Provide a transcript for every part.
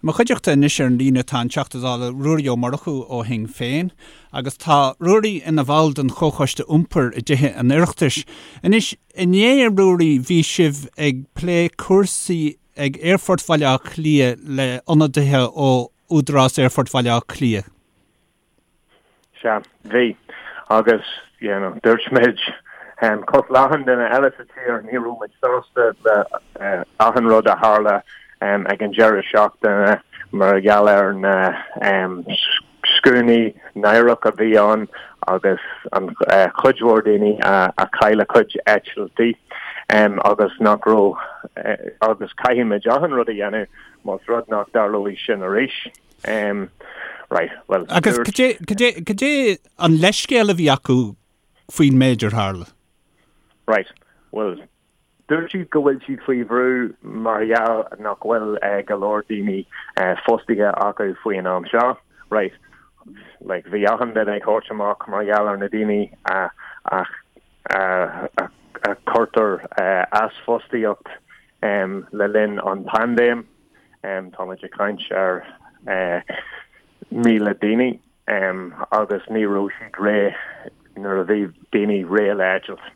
Mo chuideachta anois ar an líne tá an Teachta Dála Ruairí Ó Murchú ó Shinn Féin agus tá Ruairí ina bhall den Chomhchoiste Iompair i dTithe an Oireachtais. Anois, inné, a Ruairí, bhí sibh ag plé cúrsaí ag Aerfort Bhaile Átha Cliath le ionadaithe ó Údarás Aerfort Bhaile Átha Cliath. Sea, bhí. Agus, you know, dúirt muid, cosúil le achan duine eile sa tír, ní raibh muid sásta le achan rud a tharla ag an deireadh seachtaine mar gheall ar na scuainí náireach a bhí ann agus an chuid mhór daoine a chaill a cuid eitiltí agus nach raibh, agus caithfidh muid achan rud a dhéanamh más rud nach dtarlóidh sin arís. Um, right, well, Agus cad é, cad é, cad é an leithscéal a bhí acu faoin méid ar tharla? Right, well, dúirt siad go bhfuil siad faoi bhrú mar gheall nach bhfuil uh, go leor daoine uh, fostaithe acu faoin am seo. Right, like, bhí achan duine ag thabhairt amach mar gheall ar na daoine a, a, a, a, a cuirtear uh, as fostaíocht um, le linn an paindéim. Táimid ag caint ar 1,000 daoine agus ní raibh siad réidh nuair a bhí daoine réidh le eitilt.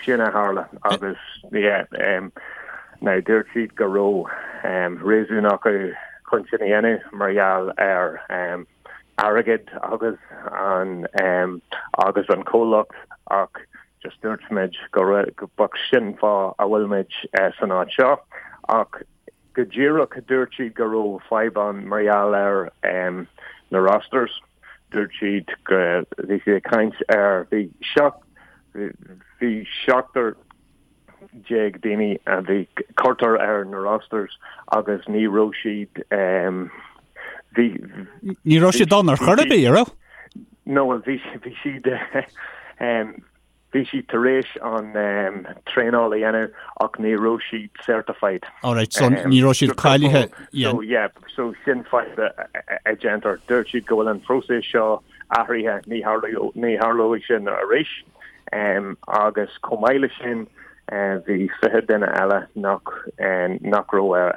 Sin a tharla agus yeah, now dúirt siad go raibh réasún acu chun sin a dhéanamh mar gheall ar airgead agus an agus an comhlacht ach just dúirt muid go raibh sin fáth a bhfuil muid san áit seo ach go díreach dúirt siad go raibh fadhb ann mar gheall ar na rosters. Dúirt siad go bhí siad ag caint ar bhí bhí seachtar déag daoine a bhí cuirtear ar na rosters agus ní raibh siad bhí Ní raibh siad ann ar chor ar bith, an raibh? No, well bhí bhí siad bhí siad tar éis an traenáil a dhéanamh ach ní raibh siad certified. All right, so ní raibh siad cáilithe. So yeah, so sin fadhb a déantar. Dúirt siad go bhfuil an phróiseas seo athraithe, ní ní tharlóidh sin arís. Agus chomh maith leis sin bhí 20 duine eile nach nach raibh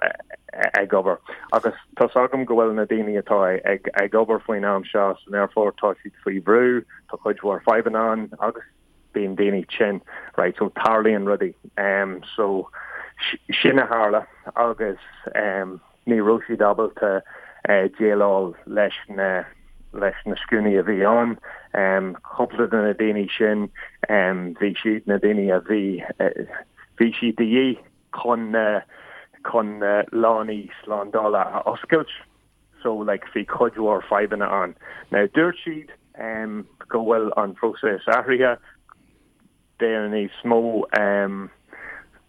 ag obair. Agus tá's agam go bhfuil na daoine atá ag ag obair faoin am seo san aerfort, tá siad faoi bhrú, tá cuid mhór fadhbanna ann agus bíonn daoine tinn, right, so tarlaíonn rudaí. So sin a tharla agus Ní raibh siad ábalta déileáil leis na leis na scuainí a bhí ann. Cúpla de na daoine sin, bhí siad na daoine a bhí bhí siad de dhíth chun na chun na lánaí slándála a oscailt. So like bhí cuid mhór fadhbanna ann. Now dúirt siad go bhfuil an próiseas athraithe. Beidh níos mó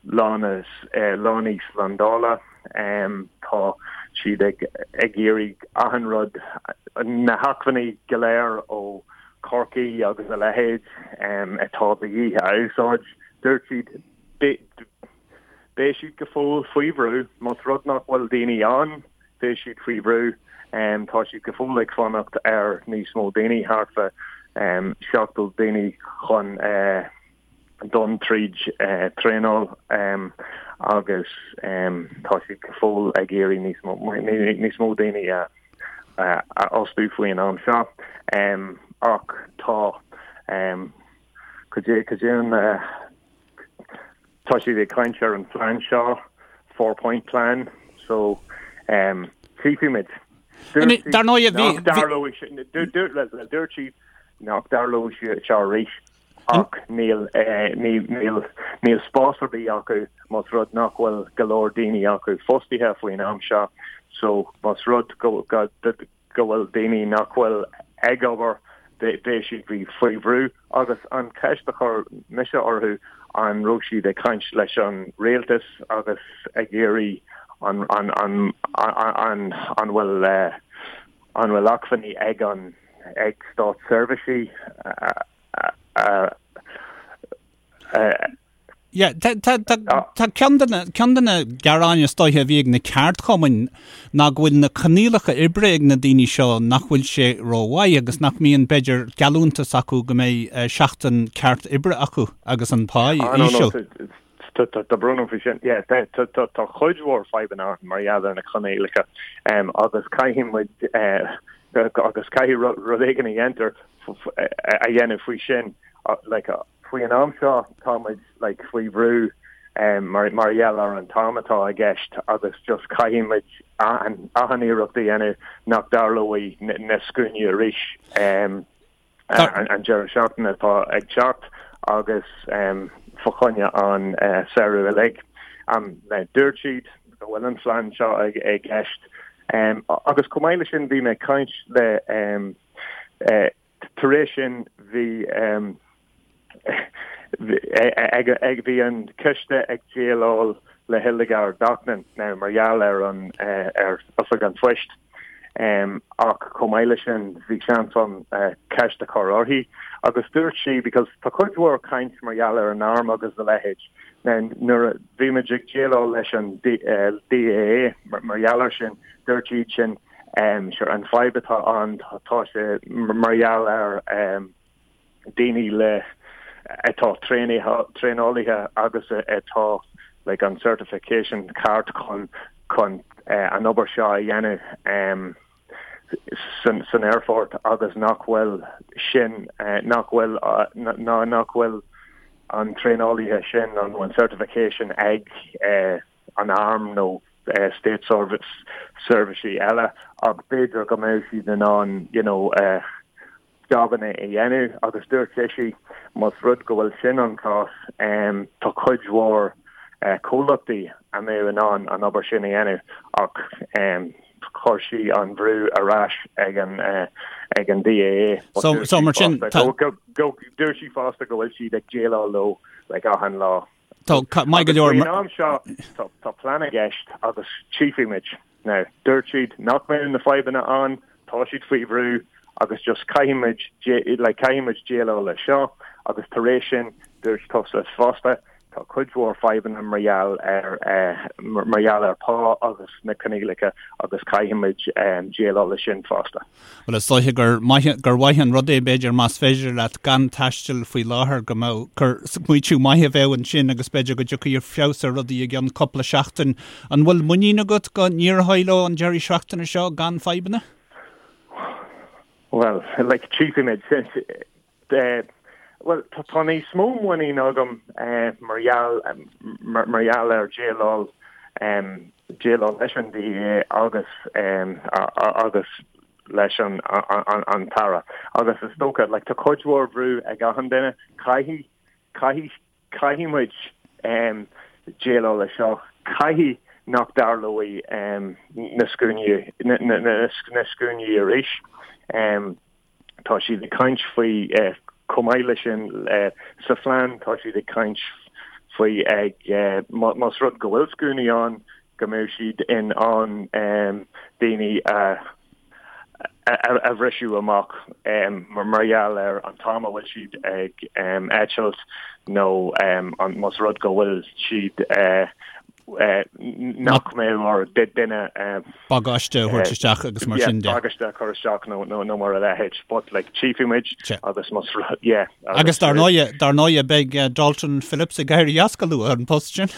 lánaí slándála. Tá siad ag iarraidh achan rud, na hacmhainní go léir ó Chorcaigh agus a leithéid atá de dhíth a úsáid. Dúirt siad beidh siad go fóill faoi bhrú más rud nach bhfuil daoine ann, beidh siad faoi bhrú. Tá siad go fóill ag fanacht ar níos mó daoine, thart fá 70 daoine chun dul tríd traenáil agus tá siad go fóill ag iarraidh níos mó níos mó daoine a fhostú faoin am seo. Ach tá cad é cad é an Tá siad ag caint ar an phlean seo, four point plan, so tchífimid. Dar ndóigh, bhí... Dúirt siad nach dtarlóidh sé seo arís ach níl níl spás ar bith acu más rud nach bhfuil go leor daoine acu fostaithe faoin am seo so más rud go go bhfuil daoine nach bhfuil ag obair, beidh siad faoi bhrú agus an cheist a chuir mise orthu an raibh siad ag caint leis an rialtas agus ag iarraidh an an an an an bhfuil an bhfuil acmhainní ag an ag státseirbhísí a a Yeah, tá, tá, tá, tá ceann de na, ceann de na gearáin is dóiche a bhí ag na ceardchumainn ná go bhfuil na coinníollacha oibre ag na daoine seo nach bhfuil sé rómhaith agus nach mbíonn, b'fhéidir, geallúntas acu go mbeidh seachtain ceart oibre acu agus an pá Ah, no, no, íseal. Tá brón orm faoi sin. Yeah, tá cuid mhór fadhbanna ann mar gheall ar na coinníollacha agus caithfidh muid agus caithfidh rud éigin a dhéantar a dhéanamh faoi sin. Like, faoi an am seo tá muid like, faoi bhrú mar mar gheall ar an t-am atá i gceist agus just caithfidh muid achan iarracht a dhéanamh nach dtarlóidh na scuainí arís. An deireadh seachtaine atá ag teacht agus fá choinne an samhradh uilig. Dúirt siad go bhfuil an phlean seo i gceist agus chomh maith leis sin bhí mé ag caint le tar éis sin bhí ag bhí an coiste ag déileáil le Hildegarde Naughton now mar gheall ar an ar Oifig an Phoist ach chomh maith leis sin bhí seans ann ceist a chur uirthi agus dúirt sí because tá cuid mhór caint mar gheall ar an arm agus a leithéid now nuair a bhí muid ag déileáil leis an DAA mar gheall ar sin dúirt siad sin sure an fadhb atá ann tá sé mar gheall ar daoine le atá traenálaithe agus atá like an certification ceart chun chun an obair seo a dhéanamh san san aerfort agus nach bhfuil sin nach bhfuil ná nach bhfuil an traenálaithe sin nó an certification ag an arm nó state service seirbhísí eile ach b'fhéidir go mbeadh siad in ann you know jabanna a dhéanamh agus dúirt sise más rud go bhfuil sin an cás tá cuid mhór comhlachtaí a mbeadh in ann an obair sin a dhéanamh ach chuir sí an bhrú ar ais ag an ag an DAA. So so mar sin dúirt sí fosta go bhfuil siad ag déileáil leo like achan lá. Tá maith go leor. Faoin am seo tá plean i gceist agus tchífidh muid. Now, dúirt siad nach mbeadh na fadhbanna ann, tá siad faoi bhrú agus just caithfidh muid like caithfidh muid déileáil leis seo agus tar éis sin dúirt tusa fosta tá cuid mhór fadhbanna mar gheall ar mar gheall ar pá agus na coinníollacha agus caithfidh muid déileáil leis sin fosta. Bhuel, is dóiche gur maith, gur mhaith an rud é, b'fhéidir, más féidir leat gan taisteal faoi láthair, go mbeadh, gur smaoitiú maith a bheadh ansin agus b'fhéidir go dtiocfaidh feabhas ar rudaí i gceann cúpla seachtain. An bhfuil muinín agat go n-éireoidh leo an deireadh seachtaine seo gan fadhbanna? Bhuel, like, tchífidh muid. Bhuel, tá níos mó muinín agam mar gheall mar gheall ar déileáil déileáil leis an DAA agus agus leis an an tAire. Agus is dócha, like, tá cuid mhór bhrú ag achan duine, caithfidh caithfidh caithfidh muid déileáil leis seo, caithfidh nach dtarlóidh na scuainí na scuainí arís. Tá siad ag caint faoi, chomh maith leis sin, sa phlean tá siad ag caint faoi ag, más rud go bhfuil scuainí ann, go mbeidh siad in ann daoine a a bhriseadh amach mar gheall ar an t-am a bhfuil siad ag eitilt nó más rud go bhfuil siad nach mbeadh ar duine bagáiste a thabhairt isteach agus mar sin de. Bagáiste a chur isteach nó nó mar a leithéid. But like tchífidh muid agus más yeah. Agus dar ndóighe, dar ndóighe beidh Dalton Phillips ag éirí as go luath an post sin.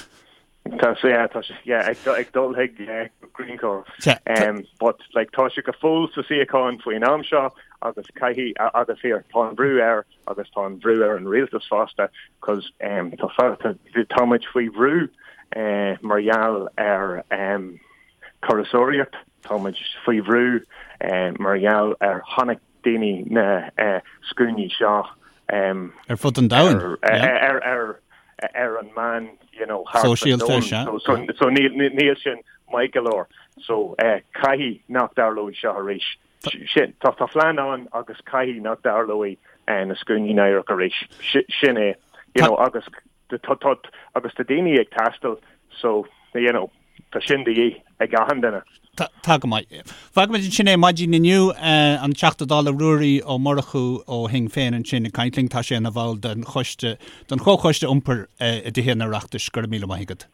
Tá sé yeah, tá sé yeah, ag ag dul chuig Greencore. Um, but like tá sé go fóill sa suíochán faoin am seo agus caithfidh agus here tá an brú air agus tá an bhrú ar an rialtas fosta cos um, tá tá muid faoi bhrú uh, mar gheall ar um, turasóireacht, tá muid faoi bhrú uh, mar gheall ar chonaic daoine na uh, scuainí seo um, ar fud an domhain ar, ar, ar, ar an meán you know, sóisialta so, so, so níl, níl sin maith go leor so uh, caithfidh nach dtarlóidh seo arís. Sin, tá tá plean ann agus caithfidh nach dtarlóidh na scuainí náireach arís. Sin é, you know, agus tá tá agus tá daoine ag taisteal so, you know, tá sin de dhíth ag achan duine. Tá go maith. Fágfaimid ansin é maidin inniu, an Teachta Dála Ruairí Ó Murchú ó Shinn Féin ansin ag caint linn. Tá sé ina bhall den choiste, den Chomhchoiste Iompair i dTithe an Oireachtais. Go raibh míle maith agat.